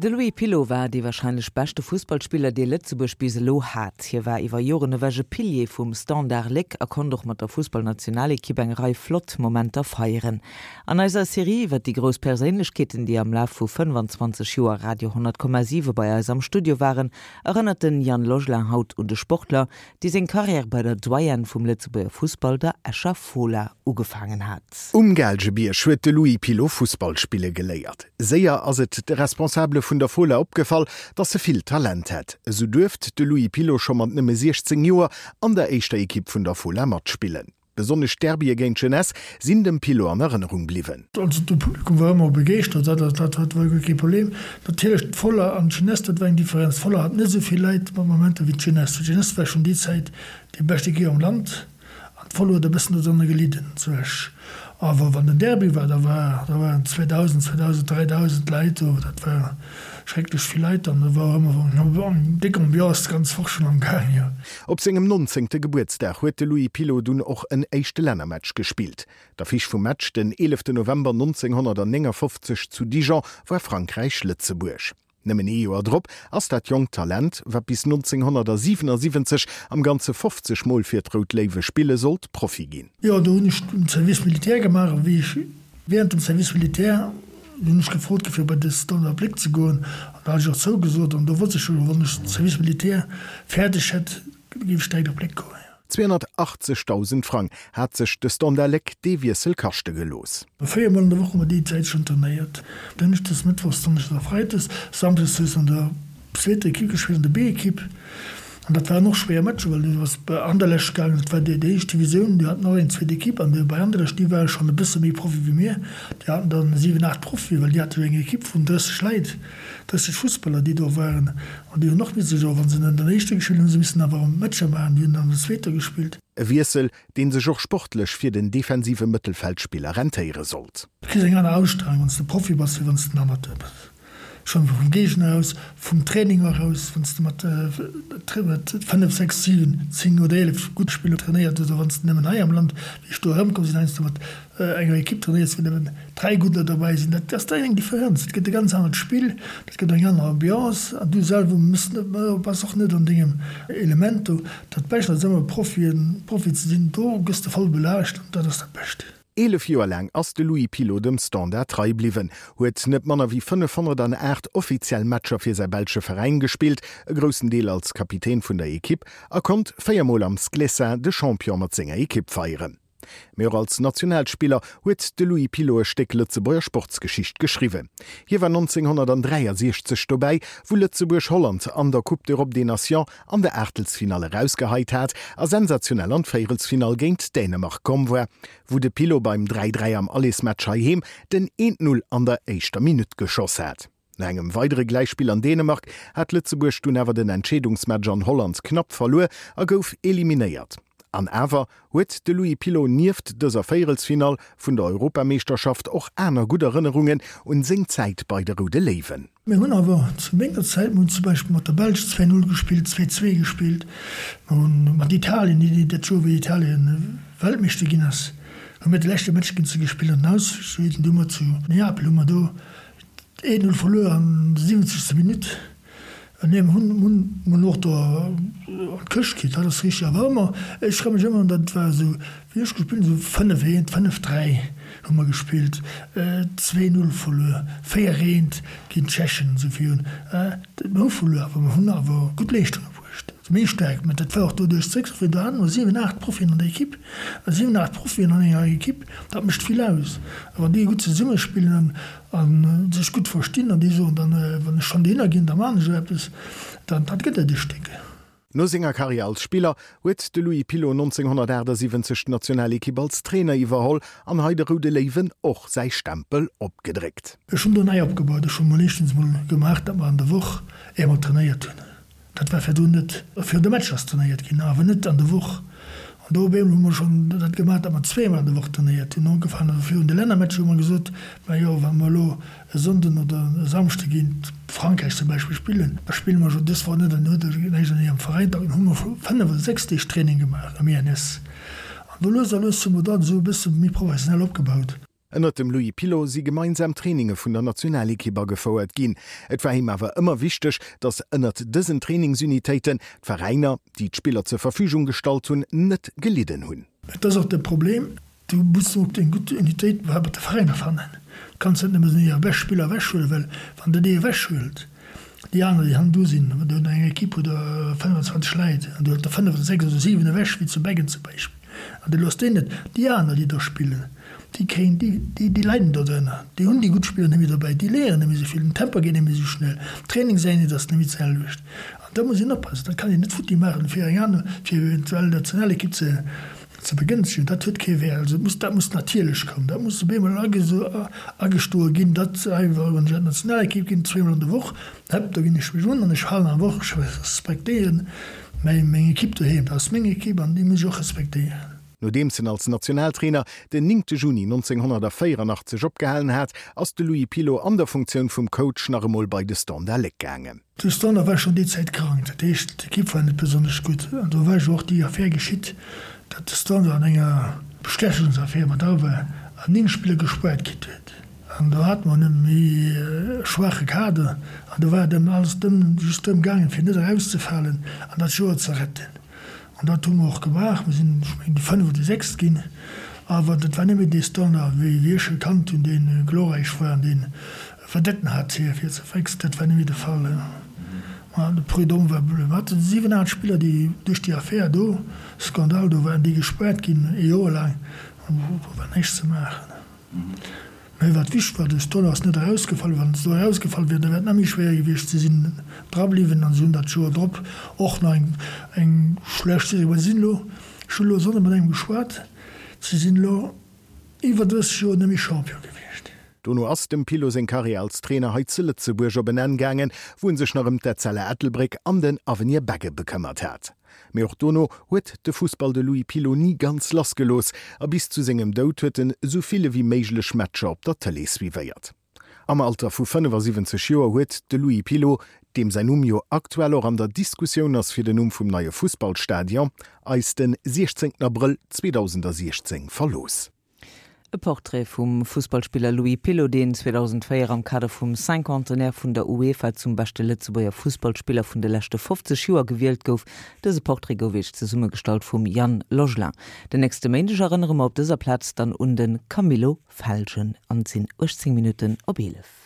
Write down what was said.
De Louis Pilot war dee warscheinlech beschte Fussballspiller, dee Lëtzebuerg bis elo hat. Hie war iwwer Joren ewech e Pilier vum Standard Léck a konnt och mat der Fussballnationalekipp eng Rei flott Momenter feieren. An eiser Serie iwwer déi grouss Perséinlechkeeten, déi am Laf vu 25 Joer Radio 10,7 bei eis am Studio waren, erënnert den Yann Logelin haut un de Sportler, dee seng Karriär bei der Doyenne vum Lëtzebuerger Fussball, der Escher Fola, ugefaangen hat. Um Gaalgebierg huet de Louis Pilot Fussball spille geléiert. Séier ass et de Responsabele vun der Fola opgefall, dass e vill Talent hätt. Esou duerft de Louis Pilot scho mat nëmme 16 Joer an der éischter Ekipp vun der Fola matspillen. Besonnesch d'Derbye géint d'Jeunesse sinn dem Pilot an Erënnerung bliwwen. Also de Publikum war ëmmer begeeschtert, dat dat dat war guer kee Problem. Natierlech d'Fola an d'Jeunesse, dat war eng Differenz. D'Fola hat net esou vill Leit mat Momenter wéi d'Jeunesse. D'Jeunesse war schonn déi Zäit déi bescht Equipe am Land an d'Fola huet e bëssen dodrënner gelidden zu Esch. Awer wann den Derby war, da war da waren 2.000, 2.000, 3.000 Leit do, dat war schrecklech vill Leit an do war och ëmmer eng déck Ambiance d'ganz Woch schonn am Gaang, jo. Op sengem nonzéngte Gebuertsdag huet de Louis Pilot dunn och en éischte Lännermatch gespillt. D'Affiche vum Match den 11 November 1959 zu Dijon war Frankräich-Lëtzebuerg. Nëmmen ee Joer drop ass dat jonkt Talent, wat bis 1977 am Ganze 50 Mol fir d'Rout Léiwe spille sollt, Profi ginn. Jo, do hunn ech den Service militaire gemaach a wéi ech während dem Service militaire hunn ech gefrot gi fir bei de Standard Léck ze goen an do hat ech och zougesot an do wosst ech jo, wann ech den Service militaire fäerdeg hätt, géif ech direkt op Léck goen. 280.000 Frang hat sech de Standard Léck dee Wiessel kaschte gelooss. 4 mol an der Woch hu mer déi Zäit schonn trainéiert, Dënschdes, Mëttwochs, Donneschdes a Freides, Samschdes hues an der zweeter Ekipp gespillt, an der B-Ekipp. An dat waren och schwéier Matcher, well du bass bei Anderlecht gaangen, dat war déi éischt Divisioun, déi haten och eng zweet Ekipp. An bei Anderlecht, déi ware schonn e bësse méi Profi wéi mir, déi haten dann 7, 8 Profie, well déi hate jo eng Ekipp vun 30 Leit, 30 Fussballer, déi do waren. An déi hunn och misse jo, wa se an der éischter gespillt hunn, hu se missen awer Matcher maachen, déi hunn an der zweeter gespillt. E Wiessel, dee sech och sportlech fir den defensive Mëttelfeldspiller rentéiere sollt. Du kriss eng aner Ausstrahlung, wann s de Profi bass, wéi wann s de en Amateur bass. Schonn vum Géigner aus, vum Training eraus, wann s de mat 5, 6, 7, 10 oder 11 gudde Spiller trainéiert hues, oder wann s de nëmmen hei am Land, wéi ech do erëmkomm sinn, heiansdo mat enger Ekipp trainéiers, wou nëmmen 3 Gudder dobäi sinn, dat ass dann eng Differenz. Et gëtt e ganz anert Spill, dat gëtt eng aner Ambiance an du selwer muss net, bass och net an dengem Element do. Dat Bescht ass ëmmer Profien, Profi ze sinn, do gëss de voll belaascht an dat ass dat Bescht. 11 Joer laang ass de Louis Pilot dem Standard trei bliwwen, huet net manner wéi 508 offiziell Matcher fir säi belsche Veräin gespillt, e groussen Deel als Kapitän vun der Ekipp, a konnt 4 Mol am Sclessin de Champion mat senger Ekipp feieren. Mee och als Nationalspiller huet de Louis Pilot e Stéck Lëtzebuerger Sportsgeschicht geschriwwen. Hie war 1963 dobäi, wou Lëtzebuerg Holland an der Coupe d'Europe des Nations an der Aachtelsfinall erausgeheit hat a sensationell an d'Véierelsfinall géint Dänemark komm war, wou de Pilot beim 3, 3 am Allersmatch heiheem den 1, 0 an der éischter Minutt geschoss hat. No engem weidere Gläichspill an Dänemark hat Lëtzebuerg dunn awer den Entscheedungsmatch an Holland knapp verluer a gouf eliminéiert. An awer huet de Louis Pilot nieft dëser Véierelsfinall vun der Europameeschterschaft och aner gutt Erënnerungen un seng Zäit bei de Roude Léiwen. Mir hunn awer zu menger Zäit, mir hunn zum Beispill mat der Belsch 2, 0 gespillt, 2, 2 gespillt, mir hunn mat Italien, dat Joer wéi Italien Weltmeeschter ginn ass, hu mir de leschte Match géint se gespillt an den Ausscheeden, do hu mer zu Neapel hu mer do 1, 0 verluer an der 70. Minutt. Nee, mir hunn, hunn, hunn och do an d'Këscht kritt, dat ass richteg. Awer ëmmer, ech ka mech ëmmer, dat war esou, wéi ech gespillt hunn, esou 5, 1, 5, 3 hu mer gespillt, 2, 0 verluer, 4, 1 géint d'Tschechen, esou virun. Mir hu verluer, awer mir hunn awer gutt Leeschtunge bruecht. Méi staark, mä dat war och doduerch zréckgefall, do hate mer 7, 8 Profien an der Ekipp. A 7, 8 Profien an enger Ekipp, dat mécht vill aus. A wann déi gutt zesummespillen, A sech gutt verstinn an déi soen dann, wann ech schonn dohinner ginn, da maachen ech och eppes, dann dat gëtt et e Stéck. No senger Karriär als Spiller huet de Louis Pilot 1978 d'Nationalekipp als Trainer iwwerholl an hei de Roude Léiwen och säi Stempel opgedréckt. Ech hunn do nei opgebaut. Ech hu mol éischtens mol gemaach, datt mer an der Woch eemol trainéiert hunn. Dat war virdrun net. Virun de Matcher ass trainéiert ginn, awer net an der Woch. An do op eemol hu mer schonn dat gemaach, datt mer zweemol an der Woch trainéiert hunn. Ugefaangen also virun de Lännermatcher hu mer gesot, majo wa mer elo e Sonnden oder e Samschde géint Frankräich zum Beispill spillen, da spille mer jo dës Woch net an huet näischt an hirem Veräin. Dann hu mer 5 oder 6 Deeg Training gemaach am INS. An do lues a lues hu mer dat esou e bësse méi professionell opgebaut. Ënnert dem Louis Pilot si gemeinsam Traininge vun der Nationalekipp agefouert ginn. Et war him awer ëmmer wichteg, datt ënnert dësen Trainingsunitéiten d'Veräiner, déi d'Spiller zur Verfügung gestallt hunn, net gelidden hunn. Et ass och de Problem, du muss och eng gutt Unitéit mat de Veräiner fannen. Du kanns net nëmmen hir bescht Spiller ewechhuelen, well wann der déi ewechhuelt, déi aner, déi hannendru sinn, wann du eng Ekipp huet 25 Leit an du huelt der 5 oder 6 oder 7 ewech, wéi zu Beggen zum Beispill, an du looss déi net, déi aner, déi do spillen, déi kréien, déi, déi, déi leiden do drënner. Déi hunn déi gutt Spiller net méi dobäi, déi léieren net méi esou vill, den Tempo geet net méi esou schnell, d'Trainingseinheet ass net méi d'selwecht. An da muss een oppassen, dat kann een net futti maachen, fir eng aner, fir eventuell d'Nationalekipp ze, ze begënschtegen. Dat huet kee Wäert. Also et muss, dat muss natierlech kommen, dat muss op eemol agestoe ginn, datt einfach, wann ech an d'Nationalekipp ginn, zweemol an der Woch, häpp, do ginn ech mech un an ech halen awer och, ech respektéieren mäi, meng Ekipp doheem. Dat ass meng Ekipp an déi muss ech och respektéieren. Nodeems en als Nationaltrainer den 9 Juni 1984 opgehalen hat, ass de Louis Pilot an der Funktioun vum Coach nach emol bei de Standard Léck gaangen. De Standard war schonn déi Zäit krank, dat heescht d'Ekipp war net besonnesch gutt. An do war jo och déi Affär geschitt, datt de Standard an enger Bestechungsaffär mat dra war an 9 Spiller gespuert kritt huet. An do hate mer e méi schwaache Kader an do war et ëm alles drëm, just drëm gaangen, fir net erauszefalen an dat Joer ze retten. An dat hu mer och gemaach. Mir sinn, ech mengen, déi Fënnef oder déi Sechst ginn. Awer dat war net méi dee Standard, wéi wéi ech e kannt hunn, dee glorräich war an dee Vedetten hat fir fir ze fréchs. Dat war net méi de Fall. Ma de Prud'homme war, mir haten 7, 8 Spiller, déi duerch déi Affär do, Skandal do waren, déi gespaart ginn ee Joer laang. An do war näischt ze maachen. Mä wat wichteg war, de Stoller ass net erausgefall. Wann se do erausgefall wier, da wär et nach méi schwéier gewiescht. Si sinn dra bliwwen an si hunn dat Joer drop och nach eng, eng schlecht Saison gemaach. Si sinn elo, ech hunn elo e Sonnde mat engem geschwat, si sinn elo iwwer 30 Joer net méi Champion gewiescht. Dono ass dem Pillo seng Karriär als Trainer hei zu Lëtzebuerg op en Enn gaangen, wou en sech nach ëm d'Etzella Ettelbréck an den Avenir Begge bekëmmert hat. Mee och dono huet de Fussball de Louis Pilot ni ganz lassgelooss a bis zu sengem Doud huet en esou vill ewéi méiglech Matcher op der Tëlee suivéiert. Am Alter vu 75 Joer huet de Louis Pilot, deem säin Numm jo aktuell och an der Diskussioun ass fir den Numm vum neie Fussballstadion, eis den 16 Abrëll 2016 verlooss. E Portrait vum Fussballspiller Louis Pilot, deen 2004 am Kader vum Cinquantenaire vun der UEFA zum beschte Lëtzebuerger Fussballspiller vun de leschte 50 Joer gewielt gouf. Dëse Portrait gouf Iech zesummegestallt vum Yann Logelin. Den nächste Méindeg erënnere mer op dëser Plaz dann un de Camillo Felgen an et sinn 18 Minutten op 11.